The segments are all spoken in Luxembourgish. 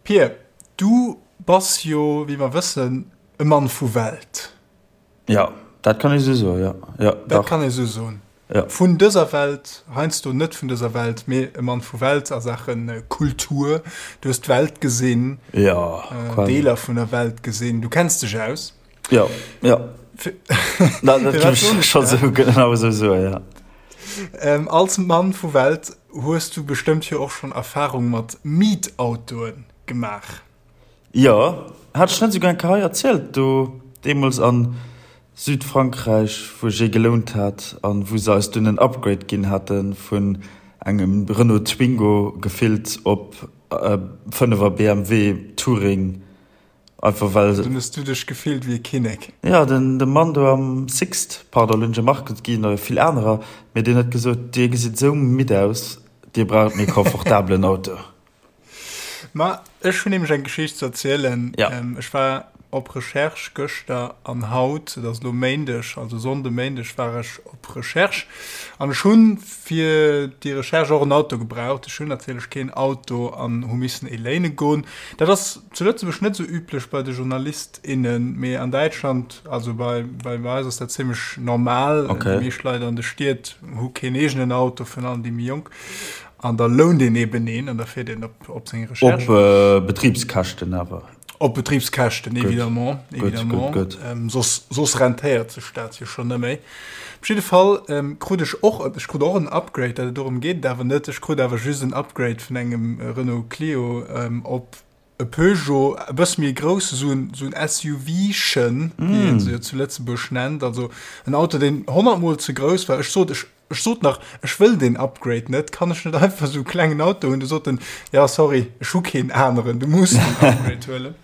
Pir, du bass jo, wéi mer wëssen, e Mann vu Welt. Jo, dat kann ee sou soen, jo. Jo, dach. Dat kann ee sou soen. Jo. Vun dëser Welt, heiansdo net vun dëser Welt, mee e Mann vu Welt a Saache Kultur. Du hues d'Welt gesinn. Jo, quasi. Deeler vun der Welt gesinn. Du kenns dech aus. Jo, jo. Dat géif ech scho sou genau esou soen, jo. Als Mann vu Welt hues du bestëmmt jo och schonn Erfarung mat Mietautoe gemaach. Jo, hat ech net esouguer eng Kéier hei erzielt, do deemools a Südfrankräich, wou ech ee gelount hat an wou se eis dunn en Upgrade ginn hate vun engem Renault Twingo gefillt op e Fënnefer BMW Touring. Einfach well. Dunn hues du dech gefillt wéi e Kinnek. Jo, den de Mann do am Sixt, pardon, elo hunn ech e Market ginn, oder vill anerer, mee deen huet gesot, Dir gesitt esou midd aus, Dir braucht méi komfortabelen Auto. Ma ech hunn nämlech eng Geschicht ze erzielen. Ja. Ech war op Recherche gëschter an haut, et ass elo Méindeg, also Sonnde Méindeg war ech op Recherche an ech hunn fir déi Recherche och en Auto gebraucht. Ech hunn natierlech keen Auto an hu missen ee léine goen. Dat ass zu Lëtzebuerg net esou üblech bei de Journalist, innen, mee an Däitschland, also bei bei eis ass dat zimmlech normal. Okay. Déi meescht Leit an de Stied hu keen eegenen Auto, virun allem déi méi jonk. An da lount een eben een an da fiert een op op seng Recherche. Op Betribskäschten awer. Op Betribskäschten, évidemment, évidemment. Gutt, gutt, gutt. Soss, soss rentéiert sech dat jo schonn net méi. Op jidde Fall krut ech och, ech krut och en Upgrade, dat et dorëm geet et awer net, ech krut awer just en Upgrade vun engem Renault Clio op e Peugeot, e bësse méi grouss, esou en, esou en SUV-chen, wéi een se jo zu Lëtzebuerg nennt, also en Auto, deen honnertmol ze grouss war. Ech sot, ech, ech sot nach, ech wëll deen Upgrade net, kann ech net einfach esou e klengen Auto hunn? Du sot en, ja sorry, ech hu keen aneren, du muss den Upgrade huelen.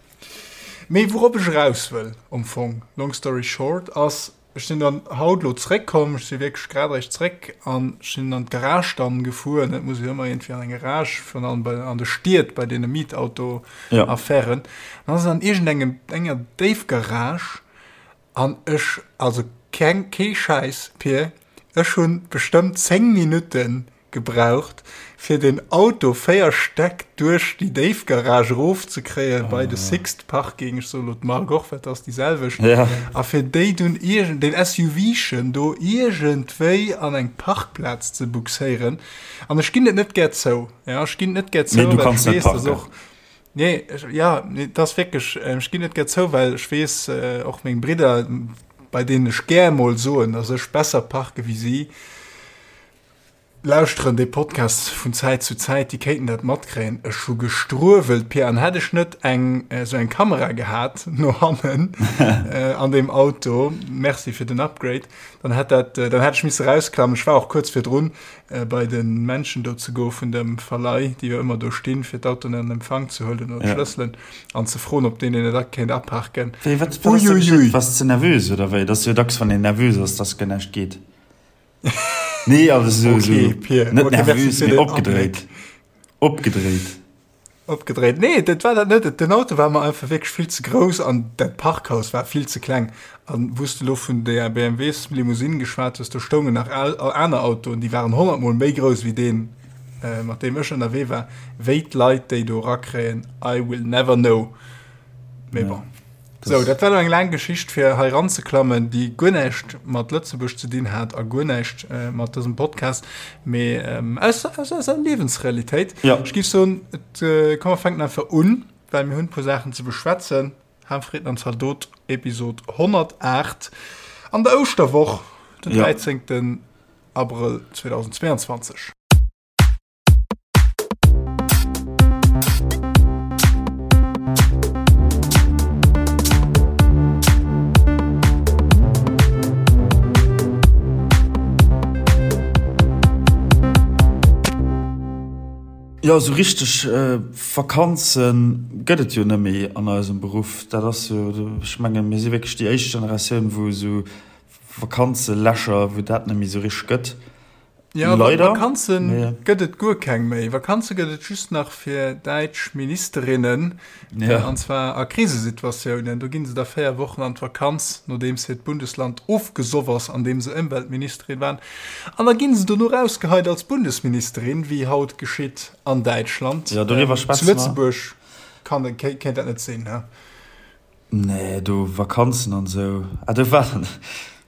Mee wourop ech eraus wëll am Fong, long story short, ass, Ech sinn dann haut elo zréckkomm, ech si wierklech grad eréischt zréck an ech sinn an d'Garage dann gefuer. Et muss jo ëmmer iergendwéi an eng Garage, virun allem bei, an de Stied bei deene Mietauto-Affären. An ass an iergendengem, enger Déifgarage an ech, also keng, kee Schäiss, Pir, ech hunn bestëmmt 10 Minutten gebraucht fir den Auto 4 Stäck duerch déi Déifgarage erof ze kréien bei de Sixt Parking, ech soe lo d'Mark och, well et ass déi selwecht, a fir déi dunn iergend, deen SUV-chen do iergendwéi an eng Parkplaz ze buxéieren. An ech ginn et net gär zou, jo, ech ginn et net gär zou, well ech weess, dass och, nee, jo, nee, et ass wierklech, ech ginn et net gär zou, well ech weess, och meng Bridder, bei deenen ech gär mol soen, dass ech besser parke wéi si, Lauschteren dee Podcast vun Zäit zu Zäit, déi kéinten dat matkréien. Ech hu gestruewelt, Pia, an hätt ech net eng esou eng Kamera gehat no hannen an deem Auto, merci fir den Upgrade, dann hätt dat, dann hätt ech misse rausklammen. Ech war och kuerz virdrun bei de Menschen do ze goe vun dem Verleih, déi jo ëmmer do stinn, fir d'Autoen an Empfang ze huelen oder d'Schlësselen an ze froen, ob deen een et kéint aparken. Wéi, wat, wat ass da geschitt? Waars de nervös oder wéi? Et ass jo dacks, wann een nervös ass, dass guer näischt geet. Nee, also so, okay, so Pierre. net okay, nervös, mee opgedréit. Opgedréit. Opgedréit. Nee, dat war dat net. Den Auto war mer einfach wierklech vill ze grouss an dat Parkhaus war vill ze kleng. An wou s de lo vun der BMWs Limousine geschwat hues, do stoungen nach aner Autoen, déi waren honnertmol méi grouss wéi deen, äh, mat deem ech ënnerwee war. Wéi d'Leit déi do erakréien, I will never know. Mee bon. Sou, dat war elo eng laang Geschicht fir hei eranzeklammen, déi guer näischt mat Lëtzebuerg ze dinn hat a guer näischt mat dësem Podcast, mee aus aus eiser Liewensrealitéit. Ja. Ech géif soen, et komm mer fänken einfach un, well mir hunn e puer Saachen ze beschwätzen. Harmfrieden an Zaldot, Episod 108 an der Ouschterwoch, den 13. Abrëll 2022. Jo, esou richteg Vakanze gëtt et jo net méi an eisem Beruff. Dat ass jo, ech mengen, mir si wierklech déi éischt Generatioun, wou esou Vakanzelächer, wou dat net méi esou richteg gëtt. Ja, Leider. Vakanze gëtt et guer keng méi. Vakanze gëtt et just nach fir däitsch Ministerinnen, ja. an zwar a Krisesituatiounen. Do ginn se da 4 Wochen an d'Vakanz, nodeems hiert Bundesland ofgesoff ass, an deem se Ëmweltministerin waren. An da ginn se dono rausgeheit als Bundesministerin, wéi haut geschitt an Däitschland. Ja, doriwwer schwätze mer. Zu Lëtzebuerg. Kann, kéint dat net sinn, he? Nee, do Vakanzen an esou. Ah, do war,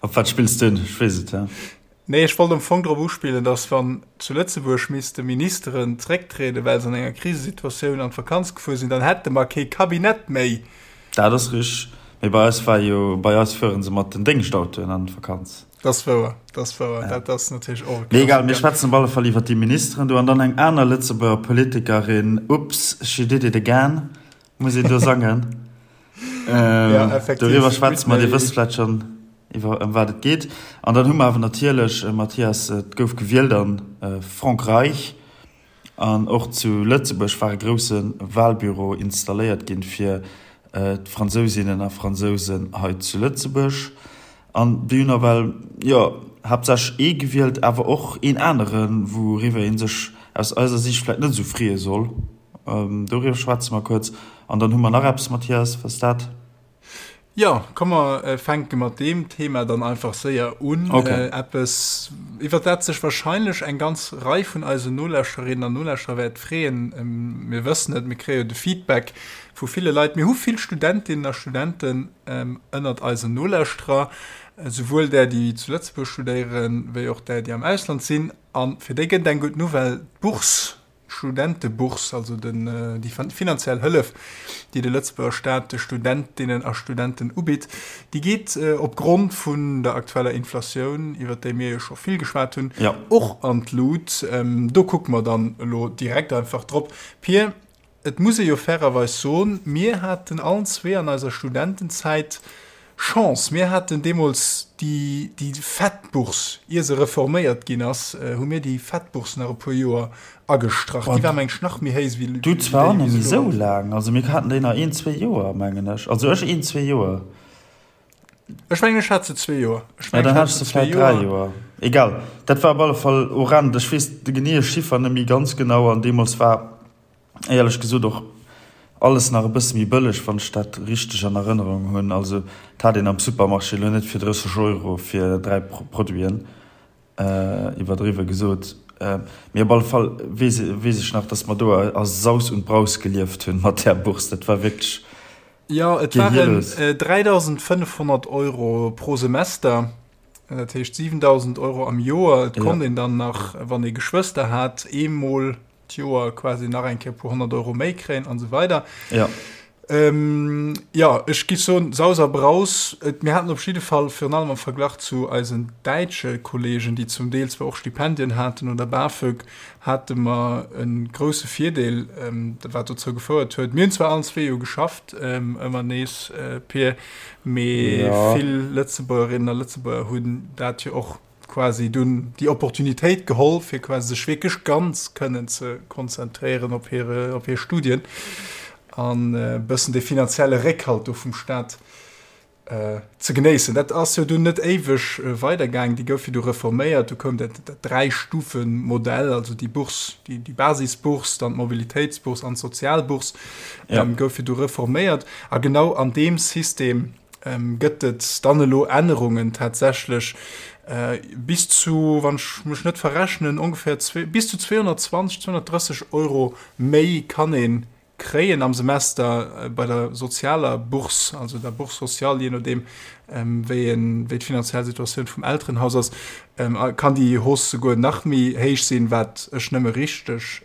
op wat spills du un? Ech weess et, ja. Nee, ech wollt am Fong drop uspillen, datt wann zu Lëtzebuerg misste Ministeren zrécktrieden, well se an enger Krisesituatioun an d'Vakanz gefuer sinn, dann hätte mer kee Cabinet méi. Dat ass richteg. Mee bei eis war jo, bei eis fuere se mat den Déngschtautoen an d'Vakanz. Dat ass wouer, dat ass wouer. Dat ass natierlech och e Mee egal, mir schwätzen op alle Fall iwwer déi Ministeren do an dann eng aner Lëtzebuerger Politikerin, Oops, she did it again, muss een do sangen. Ja, effektiv. Doriwwer schwätze mer, Dir wësst vläicht schonn, iwwer ëm wat et geet. An dann hu mer awer natierlech, Mathias, et gouf gewielt a Frankräich an och zu Lëtzebuerg war e grousse Wahlbüro installéiert ginn fir d'Fransousinnen a Fransousen hei zu Lëtzebuerg. An déi hunn nawell, jo, haaptsächlech ee gewielt, awer och een aneren, wouriwwer ee sech aus eiser Siicht vläicht net esou freeë soll. Doriwwer schwätze mer kuerz. An dann hu mer nach eppes, Mathias, wat ass dat? Jo, komm mer fänke mat deem Thema dann einfach séier un. Okay. Eppes, iwwer dat sech wahrscheinlech eng ganz Rei vun eisen Nolauschterinnen an Nolauschterer wäert freeën. Mir wëssen et, mir kréie jo de Feedback vu ville Leit. Mir hu vill Studentinnen a Studenten ënnert eisen Nolauschterer, souwuel där, déi zu Lëtzebuerg studéieren, wéi och där, déi am Ausland sinn. A fir déi gëtt et eng gutt Nouvelle, D'Bourse D'Studentebourse, also den, déi finanziell Hëllef, déi de Lëtzebuerger Staat de Studentinnen a Studenten ubitt, déi geet opgrond vun der aktueller Inflatioun, iwwert déi mir jo scho vill geschwat hunn, och an d'Lut. Do kucke mer dann elo direkt einfach drop. Pir, et muss ee jo fairerweis soen, mir haten allen zwee an eiser Studentenzäit Chance, mir haten deemools déi, déi fett Bourse, ier se reforméiert ginn ass, hu mir déi fett Bourse nach e puer Joer agestrach. Déi war, meng ech, nach méi héich wéi Du zwar och net méi esou laang, also mir haten déi nach een, zwee Joer, mengen ech. Also ech een, zwee Joer. Ech mengen, ech hat se zwee Joer. Ech mengen, ech hat se zwee Joer. Dräi Joer. Egal, dat war op alle Fall horrend. Ech weess de geneeë Chiffer net méi ganz genau an deemools war éierlech gesot och alles nach e bësse méi bëlleg, wann ech dat richteg an Erënnerung hunn. Also et hat een am Supermarché elo net fir 30 Euro fir 3 Produiten, iwwerdriwwe gesot. Mee op alle Fall weess weess ech nach, datt mer do a Saus und Braus gelieft hunn mat där Bourse. Dat war wierklech Jo, et waren 3.500 Euro pro Semester, dat heescht 7.000 Euro am Joer. Et konnt een dann nach, wann ee Geschwëster hat, eemol d'Joer quasi nach eng Kéier e puer 100 Euro méi kréien an esou weider. Ja. Ähm, ja, ech gi soen, Saus a Braus. Et, mir haten op jidde Fall, virun allem am Verglach zu eisen däitsche Kollegen, déi zum Deel zwar och Stipendien haten oder BAföG, hate mer e grousse Virdeel, ähm, wat dozou gefouert huet. Mir hunn zwar allen zwee jo geschafft, ähm, ëmmer nees, äh, Pir, mee ja. vill Lëtzebuergerinnen a Lëtzebuerger hunn dat jo och quasi dunn déi Opportunitéit geholl, fir quasi sech wierklech ganz kënnen ze konzentréieren op hire, op hir Studien an e bëssen dee finanzielle Réckhalt do vum Staat ze genéissen. Dat ass jo dunn net éiweg weidergaangen, déi gouf jo du reforméiert, du koum dat, dat Dräi-Stufen-Modell, also déi Bourse, déi, déi Basisbourse, dann d'Mobilitéitsbourse an d'Sozialbourse, ja. gouf jo du reforméiert. A genau an deem System Gëtt et dann elo Ännerungen tatsächlech bis zu, wann ech mech net verrechnen, ongeféier bis zu 220, 230 Euro méi kann ee kréien am Semester bei der sozialer Bourse, also der Bourse sociale, jee nodeem wéi een, wéi d'finanziell Situatioun vum Elterenhaus ass, kann déi Hausse souguer nach méi héich sinn, wat ech nëmme richteg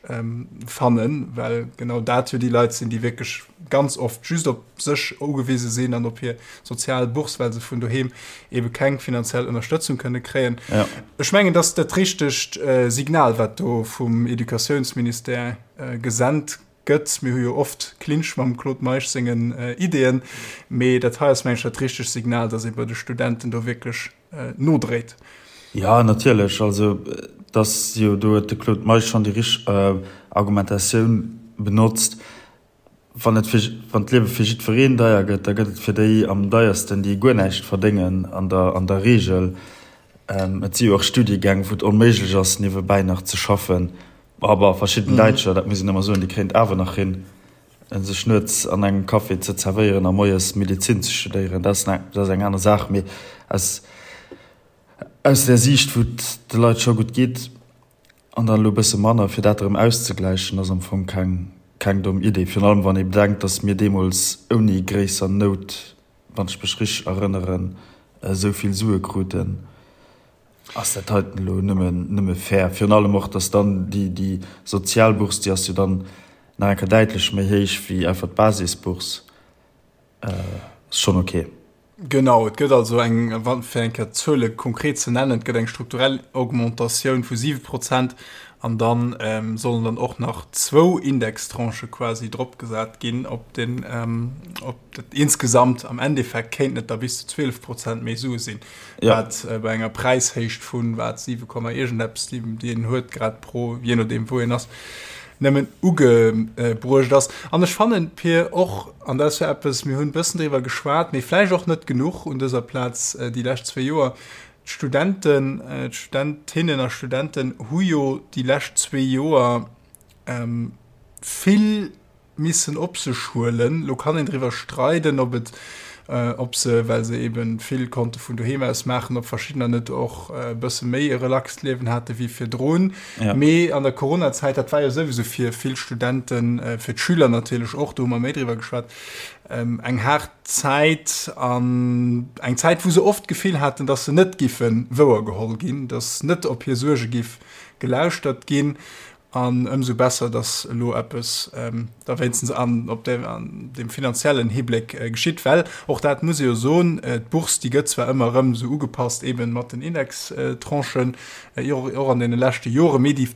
fannen, well genau dat jo déi Leit sinn, déi wierklech ganz oft just op sech ugewise sinn an op hir sozial Bourse, well se vun doheem ebe keng finanziell Ënnerstëtzung kënne kréien. Ja. Ech mengen, dass dat richtegt äh, Signal, wat do vum Educatiounsministère äh, gesennt gëtt. Mir hu jo oft Clinch mam Claude Meisch sengen äh, Ideeën, mee dat hei ass meng ech dat richtegt Signal, dass ee bei de Studenten do wierklech äh, nodréit. Ja, natierlech. Also, dass jo do huet de Claude Meisch schonn déi richteg äh, Argumentatioun benotzt. Wann et fir, wann d'Liewe fir jiddwereen deier gëtt, da gëtt et fir déi am deiersten, déi guer näischt verdéngen an der, an der Reegel. Et si jo och Studiegäng, wou et onméiglech ass, niewebäi nach ze schaffen. Bon, verschidden Däitscher, dat muss een ëmmer soen, déi kréien et awer nach hin, sech nuets an engem Café ze zerwéieren a moies Medezin ze studéieren. Dat ass, dat ass eng aner Saach. Mee aus, aus där Siicht, wou et de Leit scho gutt geet, An dann elo e bësse manner, fir dat erëm auszegläichen, ass am Fong keng. keng domm Idee, virun allem wann ee bedenkt, datt mir deemools ouni gréisser Nout, wann ech mech richteg erënneren, esou vill Sue kruten. Ass dat heiten elo nëmmen, nëmme fair? Virun allem och, datt dann déi, déi Sozialbourse, déi ass jo dann nach eng Kéier däitlech méi héich wéi einfach d'Basisbourse. Ass schonn ok. Genau, et gëtt also eng, fir eng Kéier d'Zuele konkret ze nennen, et gëtt eng strukturell Augmentatioun vu 7 Prozent an da sollen dann och nach zwou Indextranchë quasi dropgesat ginn op den, op dat insgesamt am Endeffekt kéinten et da bis zu 12 Prozent méi Sue sinn, wat bei enger Präishéicht vun, wat, 7 Komma iergendeppes, déi een huet grad pro, jee nodeem wou een ass, nëmmen ugebruecht ass. An ech fannen, Pir, och, an dat ass jo eppes, mir hunn e bëssen driwwer geschwat, mee vläicht och net genuch un dëser Plaz déi lescht zwéi Joer, d'Studenten, d'Studentinnen a Studenten hu jo déi lescht zwéi Joer vill missen op sech huelen. Lo kann een driwwer streiden, ob et, ob se, well se eben vill konnte vun doheem aus maachen, ob verschiddener net och e bësse méi e relaxt Liewen hate wéi virdrun. Ja. Mee an der Coronazäit, dat war jo souwisou fir vill Studenten, fir d'Schüler natierlech och, do hu mer méi driwwer geschwat, eng haart Zäit an eng Zäit, wou se oft d'Gefill haten, datt se net giffe wouergeholl ginn, datt net op hir Suerge giff gelauschtert ginn. An ëmsou besser, dass elo eppes da wéinstens an, op deem, an deem finanziellen Hibléck geschitt, well och dat muss ee jo soen, d'Bourse, déi gëtt zwar ëmmer erëm esou ugepasst eebe mat den Indextranchen, och an deene leschte Joren, mee déi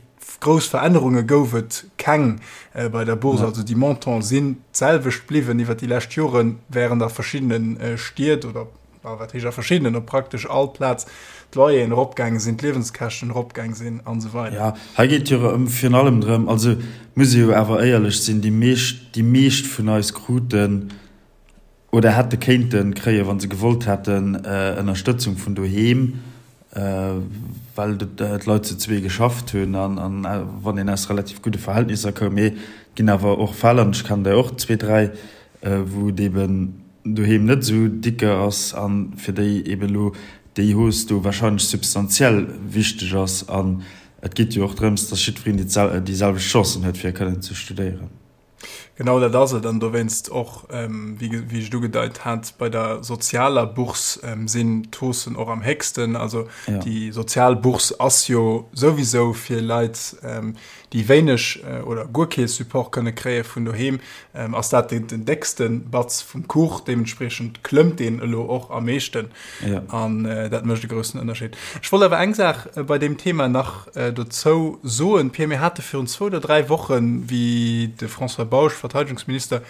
grouss Verännerunge gouf et keng bei der Bourse. Also déi Montante sinn d'selwecht bliwwen iwwert déi lescht Joren, während a verschiddene Stied oder a wat heescht a verschiddenen, op praktesch all Plaz d'Loyeren eropgaange sinn, d'Liewenskäschten eropgaang sinn an esou weider. Jo, hei geet jo erëm virun allem drëm, also muss ee jo awer éierlech sinn, déi meescht, déi meescht vun eis kruten oder hätte kéinte kréien, wa se gewollt hätten, Ënnerstëtzung vun doheem, well d'Leit zu zwee geschafft hunn an wann een aus relativ gudde Verhältnisser koum. Mee et ginn awer och Fäll, an ech kennen der och zwee, dräi, wou et eeben doheem net esou dicke ass a fir déi eben elo déi Hausse do wahrscheinlech substantiell wichteg ass. An et geet jo och drëms, dass jiddwereen déi selwecht Chancen huet, fir kënnen ze studéieren. Genau dat ass et. An dowéinst och, wéi ech et ugedeit hat, bei der sozialer Bourse sinn d'Haussen och am héchsten. Also déi sozial Bourse ass jo souwisou fir Leit, déi wéineg oder guer kee Support kënne kréie vun doheem, ass dat den déckste Batz vum Kuch. Deementspriechend klëmmt deen elo och am meeschten an dat mécht e groussen Ënnerscheed. Ech wollt awer eng Saach bei deem Thema nach dozou soen, Pierre. Mir hate virun zwou oder dräi Wochen, wéi de François Bausch, Verteidegungsminister,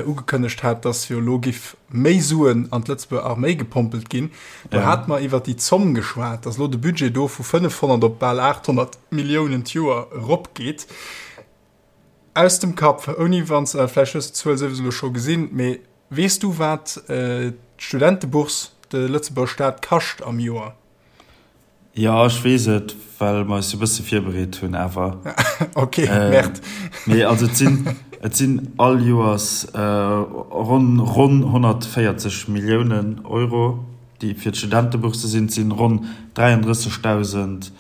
ugekënnegt hat, datt jo elo giff méi Suen an d'Lëtzebuerger Arméi gepompelt ginn, do hate mer iwwert déi Zomm geschwat, datt elo de Budget do vu 500 op bal 800 Milliounen d'Joer eropgeet. Aus dem Kapp, ouni wann s, vläicht hues de d'Zuel souwisou elo scho gesinn, mee weess du wat d'Studentebourse de Lëtzebuerger Staat kascht am Joer? Jo, ech weess et, well mer eis e bësse virbereet hunn awer. Ok, Merde. Mee also et sinn, et sinn all Joers ronn, ronn 140 Milliounen Euro, déi fir d'Studentebourse sinn. Et sinn ronn 33.000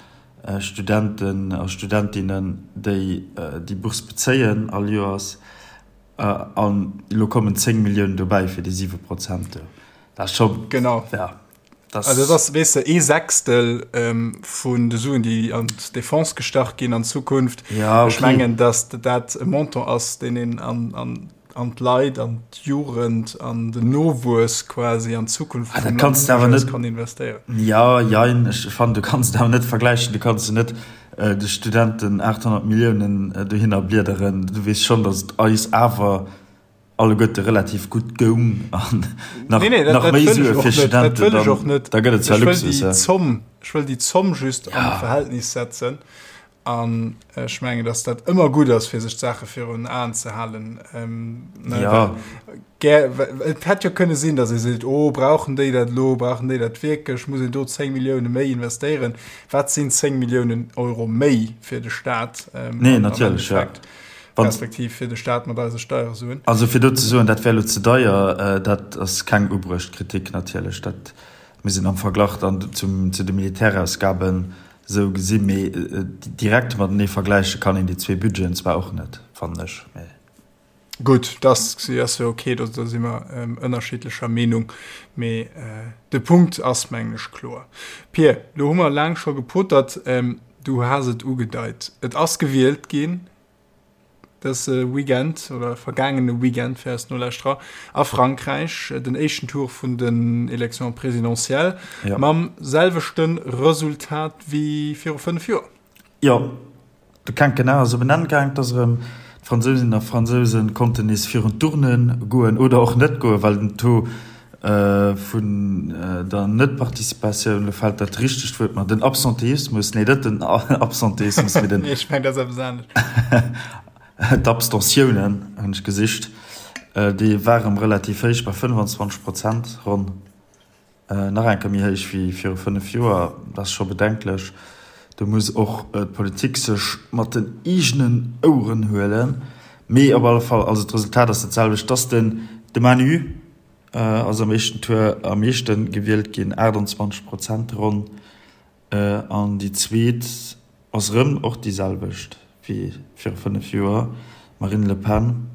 Studenten a Studentinnen, déi déi Bourse bezéien all Joers. An elo kommen 10 Milliounen dobäi fir déi 7 Prozent do. Dat ass scho, Genau. ja, dat Also dat ass, weess de, ee Sechstel vun de Suen, déi an d'Defense gestach ginn an Zukunft. Ja, okay. Ech mengen, datt dat e Montant ass, deen een an, an an d'Leit, an d'Jugend, an den Nowuess quasi, an d'Zukunft ah, vum Land awer net kann investéieren. Ja, jein, ech fannen, du kanns et awer net vergläichen. Du kanns jo net äh, de Studenten 800 Milliounen äh, dohinner bliederen. Du weess schonn, datt et eis awer alleguerte relativ gutt goung an nach, nee, nee, dat, nach dat méi wëll Sue ech fir och net, dat Studenten, wëll ech dann, och net. da gëtt et zwar Ech wëll Luxus, déi ja. Zomm, ech wëll déi Zomm just an Ja. d'Verhältnis setzen. An ech mengen, dass dat ëmmer gutt ass, fir sech d'Saache virun Aen ze halen. Ähm, ne, ja. well, gär, et hätt jo kënne sinn, dass ee seet, oh, brauchen déi dat elo, brauchen déi dat wierklech, muss een do 10 Millioune méi investéieren? Wat sinn 10 Milliounen Euro méi fir de Staat? Ähm, nee, natierlech, ja. Respektiv fir de Staat mat eise Steiersuen. Also fir do ze soen, dat wär elo ze deier, äh, dat ass keng ubruecht Kritik natierlech. Dat muss een am Verglach dann zum, zu de Militärausgaben Sou gesi, mee direkt matenee vergläiche kann een déi zwee Budgeten zwar och net, fannen ech. Mee. Gutt, dat ass jo ok, do si mer ënnerschiddlecher Meenung, mee de Punkt ass, mengen ech, kloer. Pir, lo hu mer laang scho gepotert, du has et ugedeit, et ass gewielt ginn dëse Weekend oder vergaangene Weekend fir eis Nolauschterer a Frankräich, den éischten Tour vun den Élections présidentielles mam selwechte Resultat wéi viru 5 Joer. Jo, de Quinquennat ass op en Enn gaang. Et ass erëm, d'Fransousinnen a Fransouse konnten nees virun d'Urne goen oder och net goen, well den Taux vun der Net-Participatioun, elo fält dat richtegt Wuert mer, den Absenteismus, nee net den Absenteismus, mee den. Nee, ech mengen, dat ass eppes anescht. D'Abstentiounen hunn ech gesicht, déi war erëm relativ héich, bei 25 Prozent ronn. Nach eng Kéier méi héich wéi viru 5 Joer. Dat ass scho bedenklech. Do muss och d'Politik sech mat den eegenen Oueren huelen. Mee op alle Fall, also d'Resultat ass dat selwecht, dass den de Manu ass am éischten Tour am meeschte gewielt ginn, 28 Prozent ronn. An déi zweet ass erëm och déi selwecht wéi viru 5 Joer, d'Marine Le Pen,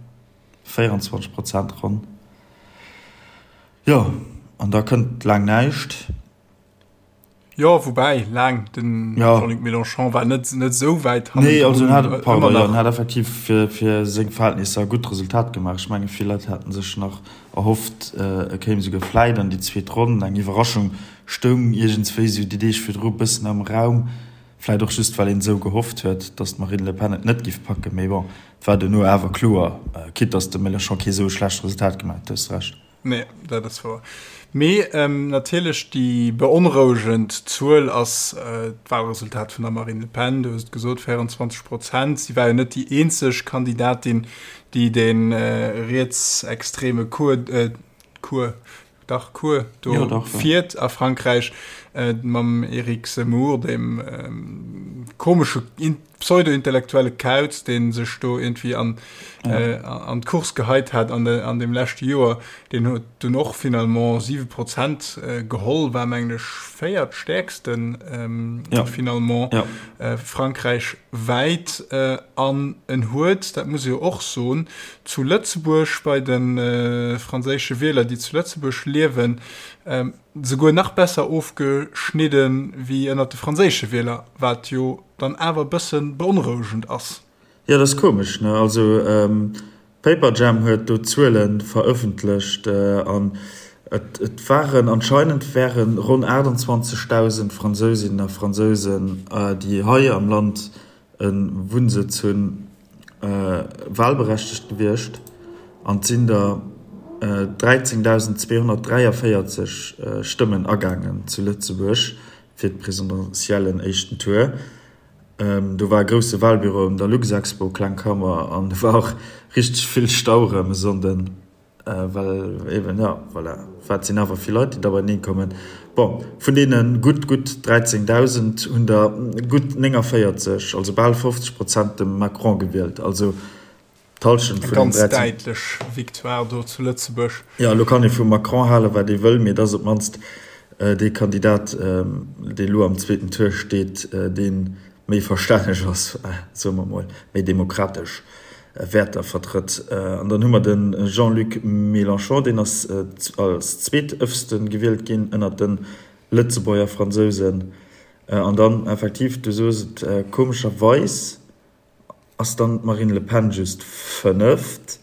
24 Prozent ronn. Jo, an da kënnt laang näischt. Jo, woubäi laang, den Jean-Luc Mélenchon war net net esou wäit hannendrun. Nee, also en hat, pardon, jo, en hat effektiv fir, fir seng Verhältnisser e gutt Resultat gemaach. Ech menge vill Leit haten sech nach erhofft, e kéim esouguer vläit an déi zweet Ronn. Eng Iwwerraschung stoung iergendswéi esou déi Deeg virdru e bëssen am Raum, vläit och just well een esou gehofft huet, datt d'Marine Le Pen et net giff packen. Mee bon, et war duerno awer kloer, quitte datt de Mélenchon kee esou e schlecht Resultat gemaach huet, du hues Recht. Nee, dat ass wouer. Mee natierlech déi beonrouegend Zuel ass d'Wahlresultat vun der Marine Le Pen. Du hues et gesot, 24 Prozent. Si war jo net déi eenzeg Kandidatin, déi de rietsextreme Cours, Cours, dach Cours do fiert a Frankräich mam Eric Zemmour, deem komesche pseudo-intellektuelle Kauz, dee sech do iergendwéi an, ja. äh, an d'Course geheit hat an, de, an dem leschte Joer, deen huet dunn och finalement 7 Prozent äh, geholl, war mengen ech véiertstäerksten ähm, ja. finalement ja. äh, Frankräich wäit äh, an en huet, dat muss ee jo och soen, zu Lëtzebuerg bei de äh, franséische Wieler, déi zu Lëtzebuerg liewen, ähm, souguer nach besser ofgeschnidden wéi ënnert de franséische Wieler, wat jo dann awer e bësse beonrouegend ass. Jo, dat ass komesch, ne? Also Paperjam huet do Zuele verëffentlecht an et et waren anscheinend wäre ronn 28.000 Fransousinnen a Fransousen, déi hei am Land e Wunnsëtz hunn, walberechtegt gewiescht an et sinn der 13.243 Stëmmen agaangen zu Lëtzebuerg fir d'Presidentiellen éischten Tour. Do war e grousse Walbüro un der Luxexpo, kleng Kammer, an do war och richteg vill Stau erëm e Sonnden. Well eben, jo, voilà, wat sinn awer vill Leit, déi da beieneen kommen. Bon, vun deene gutt, gutt 13.000 hunn der gutt 49, also bal 50 Prozent de Macron gewielt. Also d'Hallschent vun den 13. Eng ganz däitlech Victoire do zu Lëtzebuerg. Jo, elo kann ee vum Macron halen, wat ee wëll, mee et ass op d'mannst dee Kandidat, dee elo am zweeten Tour steet, dee méi verstänneg ass, soe mer emol, méi demokratesch Wäerter vertrëtt. An dann hu mer de Jean-Luc Mélenchon, deen ass als zweetëfste gewielt ginn ënnert de Lëtzebuerger Fransousen. An dann effektiv, du soos et, komescherweis ass dann d'Marine Le Pen just Fënneft.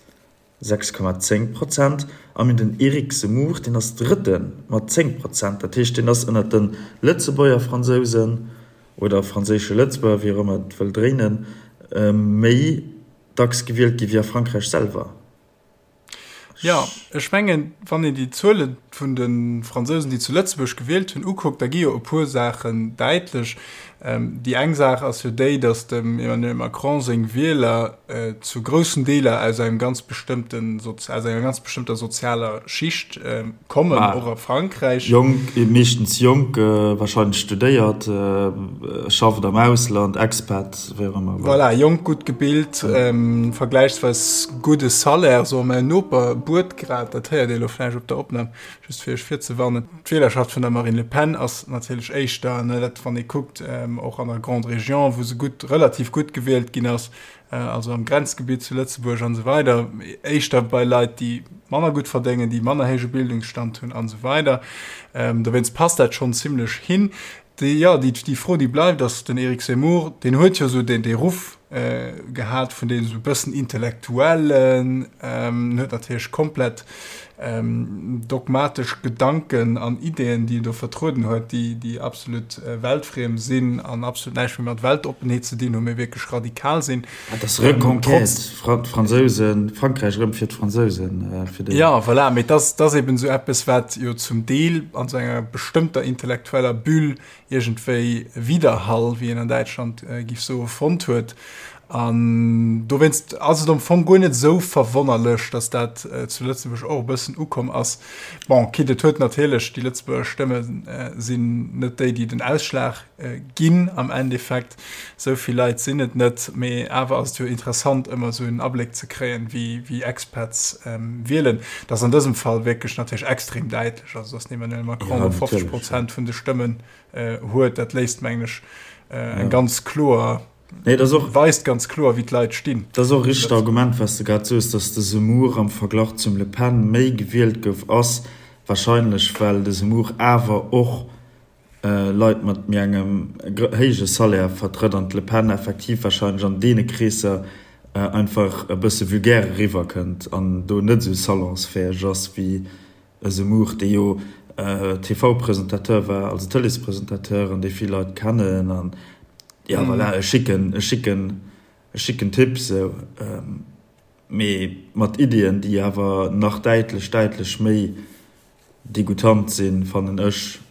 6,10 Prozent, a mir den Eric Zemmour, deen ass Drëtte mat 10 Prozent. Dat heescht, deen ass ënnert de Lëtzebuerger Fransousen oder franséische Lëtzebuerger, wéi och ëmmer et wëll dréinen, méi dacks gewielt gi wéi a Frankräich selwer. Jo, ech mengen, wann een déi Zuele vun de Fransousen, déi zu Lëtzebuerg gewielt hunn, ukuckt, da gi jo e puer Saachen däitlech. Déi eng Saach ass jo déi, datt dem Emmanuel Macron seng Wieler zu groussen Deeler aus engem ganz bestëmmten, aus enger ganz bestëmmter sozialer Schicht kommen, och a Frankräich. Jonk, meeschtens jonk, wahrscheinlech studéiert, schafft am Ausland, Expat, wéi och ëmmer. Voilà, jonk, gutt gebilt, vergläichsweis gudde Salaire, soe mäin Noper buert grad, dat héiert Dir elo vläicht op der Opnam, just fir Iech virzewarnen. D'Wielerschaft vun der Marine Le Pen ass natierlech éischter, ne, dat wann ee kuckt. Och an der Grande Région, wou se gutt, relativ gutt gewielt ginn ass, also am Grenzgebitt zu Lëtzebuerg an esou weider, éischter bei Leit, déi manner gutt verdéngen, déi manner héije Bildungsstand hunn an esou weider. Dowéinst passt dat schonn zimlech hin. Déi, jo, déi, déi Fro, déi bleift, ass, den Éric Zemmour, deen huet jo esou deen, dee Ruff gehat vun deem esou e bëssen Intellektuellen, huet natierlech komplett dogmatesch Gedanken an Ideeën, déi en do vertrueden huet, déi, déi absolut weltfriem sinn an absolut näischt méi mat Weltoppenheet ze dinn hunn, mee wierklech radikal sinn. Dat ass Reconquête, d'Fransousen, Frankräich erëm fir d'Fransousen, fir déi. Jo, voilà, mee dat ass, dat ass eben esou eppes, wat jo zum Deel an esou enger bestëmmter intellektueller Bulle iergendwéi Widerhall, wéi een an Däitschland giff soen, fonnt huet. An dowéinst ass et am Fong guer net esou verwonnerlech, datt dat zu Lëtzebuerg och e bëssen ukomm ass. Bon, quitte et huet natierlech, déi Lëtzebuerger Stëmme sinn net déi, déi den Ausschlag ginn am Endeffekt, esou vill Leit sinn et net, mee awer ass et jo interessant, ëmmer esou en Abléck ze kréien, wéi Expats wielen. Dat ass an dësem Fall wierklech natierlech extrem däitlech, also datt den Emmanuel Macron do 50 Prozent vun de Stëmmen huet, dat léisst, mengen ech, eng ganz kloer, Nee, dat ass och, weist ganz kloer, wéi d'Leit stinn. Dat ass och e richtegt Argument, wat s de grad soos, datt de Zemmour am Verglach zum Le Pen méi gewielt gouf, ass wahrscheinlech, well de Zemmour awer och Leit mat méi engem héije Salaire vertrëtt an d'Le Pen effektiv wahrscheinlech an deene Kreesser einfach e bësse vulgär eriwwerkënnt an do net esou salonsfäeg ass wéi e Zemmour, dee jo TV-Presentateur war, also Tëleespresentateur an dee vill Leit kennen an jo voilà, e schicken, e schicken, e schicken Typ sou, mee mat Iddien, déi awer nach däitlech, däitlech méi degoutant sinn, fannen ech,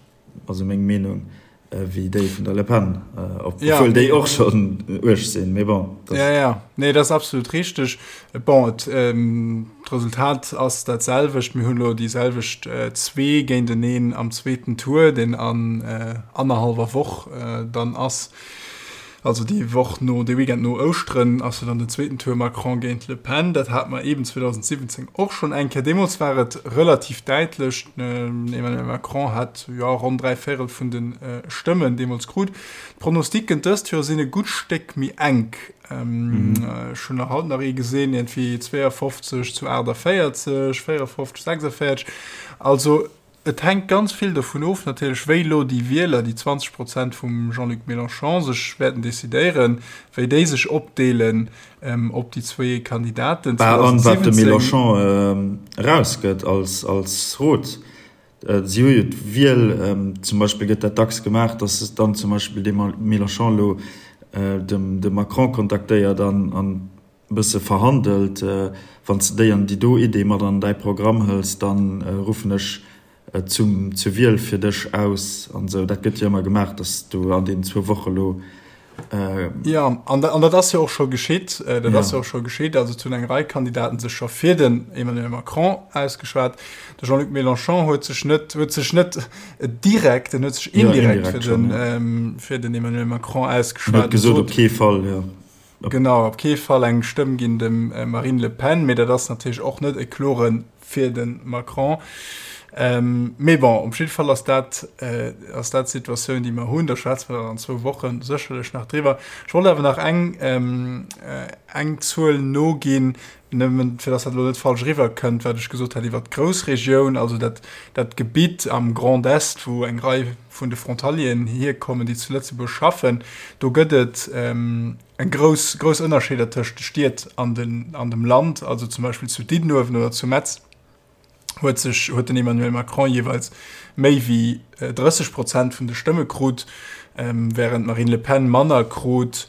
also meng Meenung, wéi déi vun der Le Pen, obwuel déi och schonn uerg sinn, mee bon. Ja, ja, nee, dat ass absolut richteg. Bon, et, d'Resultat ass dat selwecht. Mir hunn elo déi selwecht zwee géinteneen am zweeten Tour, deen an annerhallwer Woch dann ass. Also déi Woch no, dee Weekend no Ouschteren ass jo dann den zweeten Tour Macron géint Le Pen. Dat hate mer eeben 2017 och schonn eng Kéier. Deemools war et relativ däitlech. Den Emmanuel Macron hat jo ronn 3 Véirel vun de Stëmmen deemools krut. D'Pronosticken dëst Joer sinn e gutt Stéck méi enk. Ech hunn nach haut nach ee gesinn, iergendwéi 52 zu 48, 54, 46. Also Et hänkt ganz vill dovun of natierlech, wéi elo déi Wieler, déi 20 Prozent vum Jean-Luc Mélenchon, sech wäerten decidéieren, wéi déi sech opdeelen op déi zwéi Kandidaten. Bah, an wat de Mélenchon erausgëtt als, als Rot. Si hu jo d'Wiel, zum Beispill gëtt dat dacks gemaach, datt dann zum Beispill de Mélenchon elo dem, de Macron kontaktéiert an, an bësse verhandelt, Wann s de déi an déi do Idee mat an däi Programm hëls, da ruffen ech zum zur Wiel fir dech aus an esou. Dat gëtt jo ëmmer gemaach, datt s du an deenen zwou Woche lo. Jo, an dat ass jo och scho geschitt. Dat ass jo och scho geschitt. Also et hunn eng Rei Kandidaten sech scho fir den Emmanuel Macron ausgeschwat. De Jean-Luc Mélenchon huet sech net, huet sech net direkt, en huet sech indirekt fir den, fir den Emmanuel Macron ausgeschwat. Huet gesot, op kee Fall, jo. Genau, op kee Fall eng Stëmm ginn dem Marine Le Pen, mee dat ass natierlech och net e klore fir de Macron. Mee bon, op jidde Fall ass dat, ass dat d'Situatioun, déi mer hunn. Da schwätze mer dann an zwou Woche sécherlech nach driwwer. Ech wollt awer nach eng, eng Zuel noginn, nëmmen fir datt dat elo net falsch eriwwerkënnt, wat ech gesot hat iwwert d'Groussregioun, also dat, dat Gebitt am Grand Est, wou eng Rei vun de Frontalieren hierkommen, déi zu Lëtzebuerg schaffen, do gëtt et eng grouss, grouss Ënnerscheeder tëscht de Stied an den, an dem Land. Also zum Beispill zu Diddenuewen oder zu Metz huet sech, huet den Emmanuel Macron jeeweils méi wéi 30 Prozent vun de Stëmme krut, wärend d'Marine Le Pen manner krut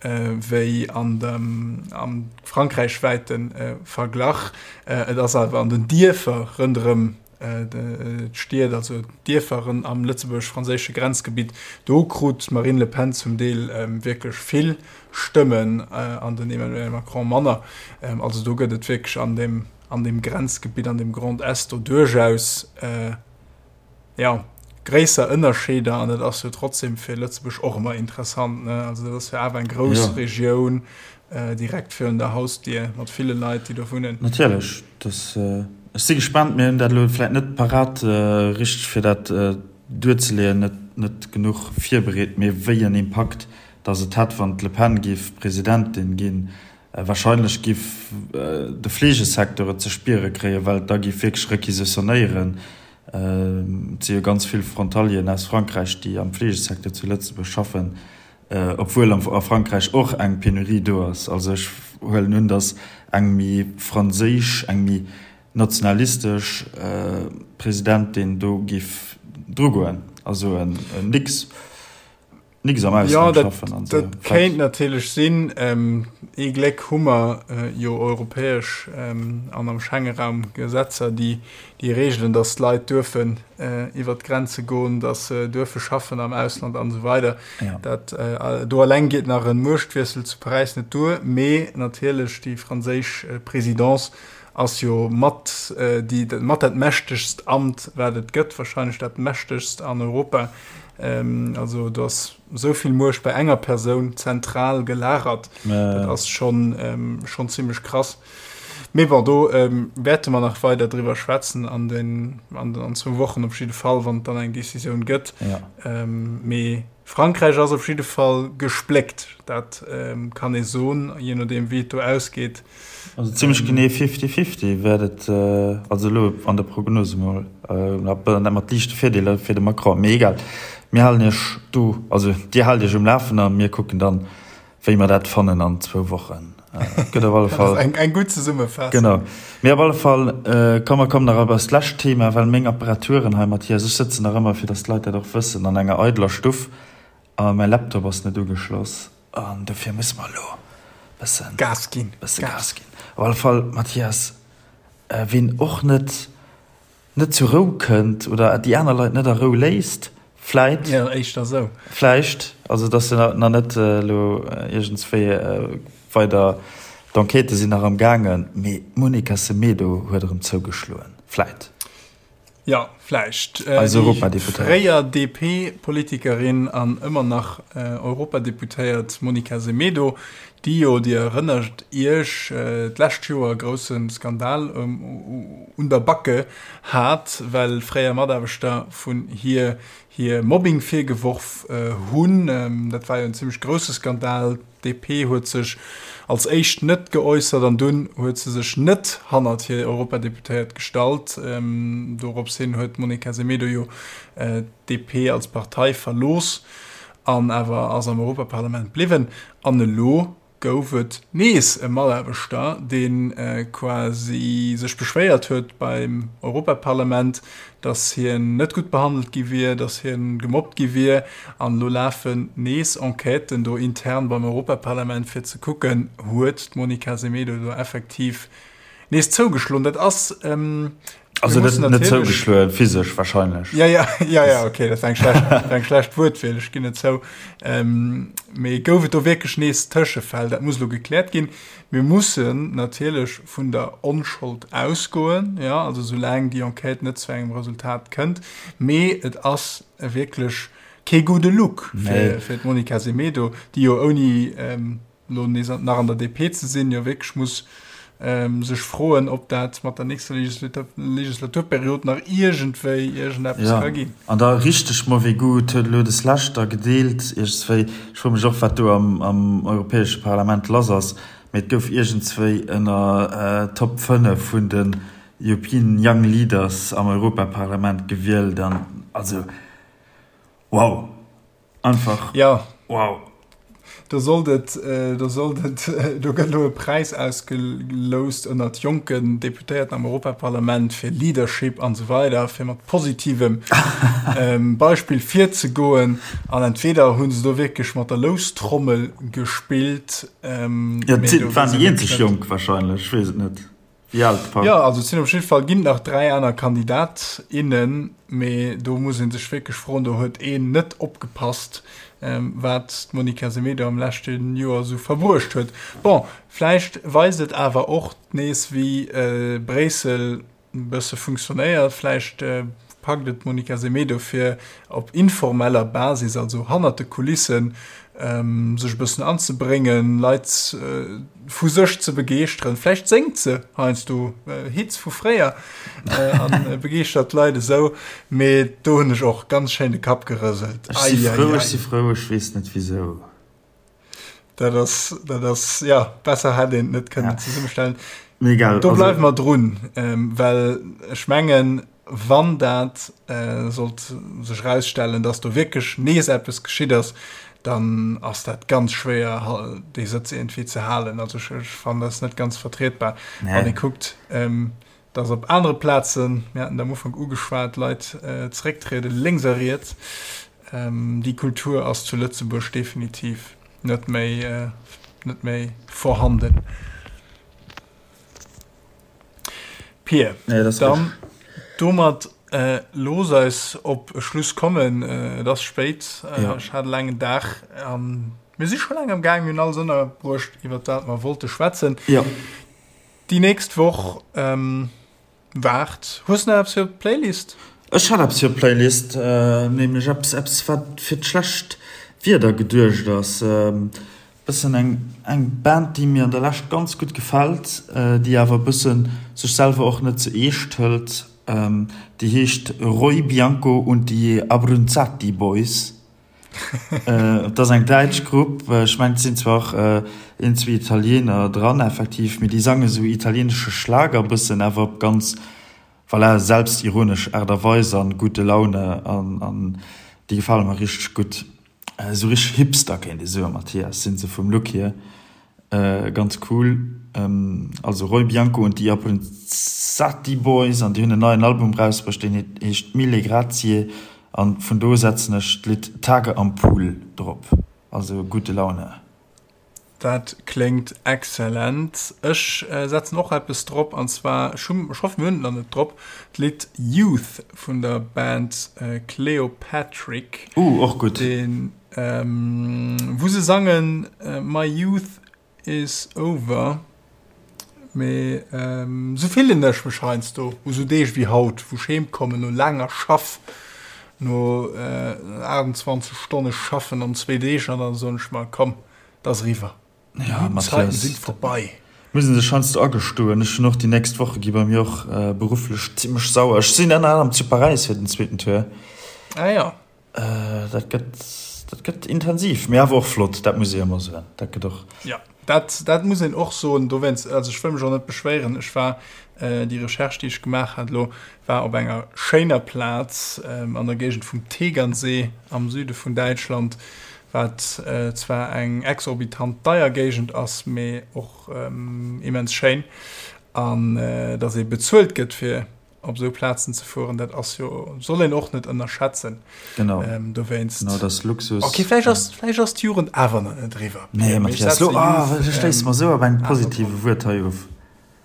wéi an dem, am frankräichwäite Verglach. Et ass awer an den Dierfer ronderëm d'Stied, also d'Dierfer am lëtzebuergesch-franséische Grenzgebitt, do krut d'Marine Le Pen zum Deel wierklech vill Stëmmen an den Emmanuel Macron manner. Also do gëtt et wierklech an deem, an deem Grenzgebitt, an deem Grand Est do duerchaus, jo, gréisser Ënnerscheeder an dat ass jo trotzdem fir Lëtzebuerg och ëmmer interessant, ne? Also dat ass jo awer eng grouss ja. Regioun äh, direkt virun der Hausdier mat ville Leit, déi do wunnen. Natierlech, das, äh, ech si gespannt, mir hunn dat elo vläit net parat äh, richteg fir dat äh, duerzeleeën. net genuch virbereet, mee wéi en Impakt datt et hätt, wann d'Le Pen géif Presidentin ginn. Wahrscheinlech géif de Fleegesecteur et ze spiere kréien, well et da géif wierklech requisitionnéieren. Et si jo ganz vill Frontalieren aus Frankräich, déi am Fleegesecteur zu Lëtzebuerg schaffen, obwuel a Frankräich och eng Penurie do ass. Also ech huelen un, datt eng méi franséisch, eng méi nationalistesch Presidentin do géif drugoen a soen, Nix. Nix am Ausland ja, schaffen an so. Dat kéint natierlech sinn. Ähm, ee Gléck hu mer äh, jo europäesch ähm, an am Schengeraum Gesetzer, déi déi reegelen, datt d'Leit duerfen äh, iwwer d'Grenze goen, datt se duerfe schaffen am Ausland an esou weider. Ja. Dat, äh, do alleng geet nach en Muechtwiessel zu Paräis net duer, mee natierlech déi franséisch äh, Présidence ass jo mat äh, déi, mat dat mächtegst Amt, wat et gëtt, wahrscheinlech dat mächtegst an Europa. Also do ass esou vill Muecht bei enger Persoun zentral gelagert. Dat ass schonn schonn zimmlech krass. Mee bon, do wäerte mer nach weider driwwer schwätzen an den an den an zwou Wochen op jidde Fall, wann et dann eng Decisioun gëtt. Mee Frankräich ass op jidde Fall gespléckt, dat kann ee soen, jee nodeem wéi et do ausgeet. Also zimmlech genee fifty-fifty wäert et, also elo an der Prognose mol, mat liichte Virdeeler fir de Macron. Mee egal, mir halen Iech do, also Dir haalt Iech um Lafen a mir kucken dann, wéi mer dat fannen an zwou Wochen. Gëtt op alle Fall. Eng, eng gutt Zesummefaassung. Genau. Mee op alle Fall, komm mer kommen nach op eist lescht Thema, well meng Apparaturen hei, Mathias, ech sëtzen nach ëmmer, fir datt d'Leit dat och wëssen, an enger eideler Stuff a mäi Laptop ass net ugeschloss. An dofir musse mer elo bëssen Gas ginn. Bësse Gas ginn. Op alle Fall, Mathias, ween och net net zur Rou kënnt oder déi aner Leit net a Rou léisst, vläit. Jo, éischter esou. Vläicht, also et ass jo nach net elo iergendswéi weider, d'Enquêtë sinn nach am gaangen, mee d'Monica Semedo huet erëm zougeschloen, vläit. Jo, vläicht. Eis Europadeputéiert. Fréier DP-Politikerin an ëmmer nach Europadeputéiert Monica Semedo, déi jo, Dir erënnert Iech, d'lescht Joer e grousse Skandal un der Backe hat, well fréier Mataarbechter vun hir hir Mobbing virgeworf hunn. Dat war jo en zimmlech grousse Skandal. D'DP huet sech als éischt net geäussert an dunn huet se sech net hannert hir Europadeputéiert gestallt. Dorops hin huet d'Monica Semedo jo d'DP als Partei verlooss an awer ass am Europaparlament bliwwen. An elo gouf et nees e Mataarbechter, dee quasi sech beschwéiert huet beim Europaparlament, dass hien net gutt behandelt gi wier, dass hien gemobbt gi wier. An elo lafen nees Enquêten do intern beim Europaparlament, fir ze kucken, huet d'Monica Semedo do effektiv nees zougeschloen. Dat ass, mir Also net, mussen net natierlech. zougeschloen, physesch wahrscheinlech. Ja, ja, ja, ja, okay, dat war eng schlecht, dat war eng schlecht Wuertwiel, ech ginn et zou. Mee gouf et do wierklech nees Tëschefäll? Dat muss elo gekläert ginn. Mir mussen natierlech vun der Onschold ausgoen, jo, also soulaang déi Enquête net zu engem Resultat kënnt. Mee et ass wierklech kee gudde Look fir, fir d'Monica Semedo, déi jo ouni elo nees nach an der DP ze sinn, jo wierklech muss sech froen, ob dat mat der nächster Legislaturperiod nach iergendwéi iergendeppes ka ginn. An da richteg mauvais goût huet elo des Lescht da gedeelt iergendswéi, ech froe mech och wat do am am Europäesche Parlament lass ass, mee et gouf iergendswéi ënner Top 5 vun den European Young Leaders am Europaparlament gewielt an also wow! Einfach ja. wow. Do sollt et, do sollt et, do gëtt elo e Präis ausgeloust ënnert jonken Deputéierten am Europaparlament fir Leadership an esou weider, fir mat positivem Beispill virzegoen. An entweder hu se do wierklech mat der Loustrommel gespillt. Jo, et waren déi eenzeg Jonk wahrscheinlech, ech weess et net. Wéi al d'Fra? Jo, also et sinn op jidde Fall ginn nach 3 aner Kandidat, innen, mee do muss ee sech wierklech froen, do huet een net opgepasst, wat d'Monica Semedo am leschte Joer esou verbruecht huet. Bon, vläicht weist et awer och nees, wéi Bréissel e bësse funktionéiert. Vläicht packt et d'Monica Semedo fir op informeller Basis, also hannert de Kulissen. sech e bëssen anzebréngen, Leit vu sech ze begeeschteren. Vläicht séngt se heiansdo Hits vu fréier a begeeschtert d'Leit esou. Mee do hunn ech och ganz schéin de Kapp gerëselt. Ech si frou, ech si frou, ech weess net wisou. Dat ass, dat ass, ja, besser hätt een et net kënnen zesummestellen. Mee egal. Do bleiwe mer drun, well ech mengen, Wann dat sollt sech erausstellen, dass do wierklech nees eppes geschitt ass, dann ass dat ganz schwéier, déi Sëtz iergendwéi ze halen. Also ech fannen, dat ass net ganz vertrietbar. Wann ee kuckt, dass op anere Plazen, mir haten et am Ufank ugeschwat, Leit zerécktrieden, lénks a riets. Déi Kultur ass zu Lëtzebuerg definitiv net méi, net méi vorhanden. Pir, nee, das dann domat äh, looss eis op e Schluss kommen. Äh, et ass spéit, äh, ja. ech hat e laangen Dag. Ähm, mir si scho laang am Gaang, mir hunn alles ënnerbruecht, iwwer dat mer wollte schwätzen. Ja. Déi nächst Woch ähm, waart. Hues du nach eppes fir d'Playlist? Ech hat eppes fir d'Playlist, äh, nämlech eppes, eppes wat fir d'schlecht Wieder geduecht ass. Ähm, Bëssen eng eng Band déi mir an der Lescht ganz gutt gefält, déi awer e bëssen sech selwer och net ze eescht hëlt. Déi heescht Roy Bianco und die Abruzzati Boys. Et ass eng däitsch Grupp, ech mengen et sinn zwar och een zwee Italiener dran effektiv, mee déi sange sou italienesche Schlager bëssen, awer op ganz voilà selbstironesch Aart a Weis an gute Laune an déi gefale mer richteg gutt. Esou richteg Hipster kéint ee soen, Mathias, sinn se vum Look hier. Ganz cool. Also Roy Bianco und die Appenzati Boys an déi hunn en neien Album rausbruecht, deen heescht Mille Grazie an vun do setzen ech d'Lidd Tage am Pool drop. Also gute Laune. Dat kléngt excellent. Ech setzen och eppes drop, an zwar, ech hunn, ech hoffen mir hunn et nach net drop, d'Lidd Youth vun der Band Cleopatrick. Uh, och gutt. Deen, wou se sangen My youth is over. Mee esou fillen ech mech heiansdo u sou Deeg wéi haut, wou ech heem kommen no laanger Schaff, no 28 Stonne Schaffen an zwee Deeg, an dann soen ech mer, komm, et ass eriwwer, déi gudden Zeiten sinn vorbei. Muss een sech heiansdo agestoen. Ech hunn och déi nächst Woche gi bei mir och berufflech zimmlech sauer. Ech sinn ënner anerem zu Paräis fir den zweeten Tour. Ah jo. Dat gëtt, dat gëtt intensiv, mee awer och flott, dat muss ee ëmmer soen. Dat gëtt och. Ja, dat, dat muss een och soen. Dowéinst, also ech wëll mech och net beschwéieren. Ech war, déi Recherche, déi ech gemaach hat elo, war op enger schéiner Plaz an der Géigend vum Tegernsee am Süde vun Däitschland, wat zwar eng exorbitant deier Géigend ass, mee och immens schéin. An datt ee bezuelt gëtt fir op esou Plazen ze fueren, dat ass jo, soll een och net ënnerschätzen. Genau. Ähm, dowéinst. Genau, dat ass Luxus. Okay, vläicht ass, vläicht ass d'Jugend awer nach net eriwwer. Nee, Mathias, lo, ah, du schléiss mer esou op engem positive Wuert hei of.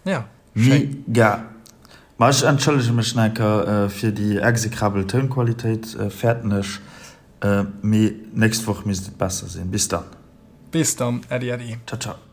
Ja, schéin. Mega. Ma ech entschëllege mech nach eng Kéier fir déi execrabel Tounqualitéit, fäerten ech, mee nächst Woch misst et besser sinn. Bis dann. Bis dann, Äddi, äddi. Ciao, ciao.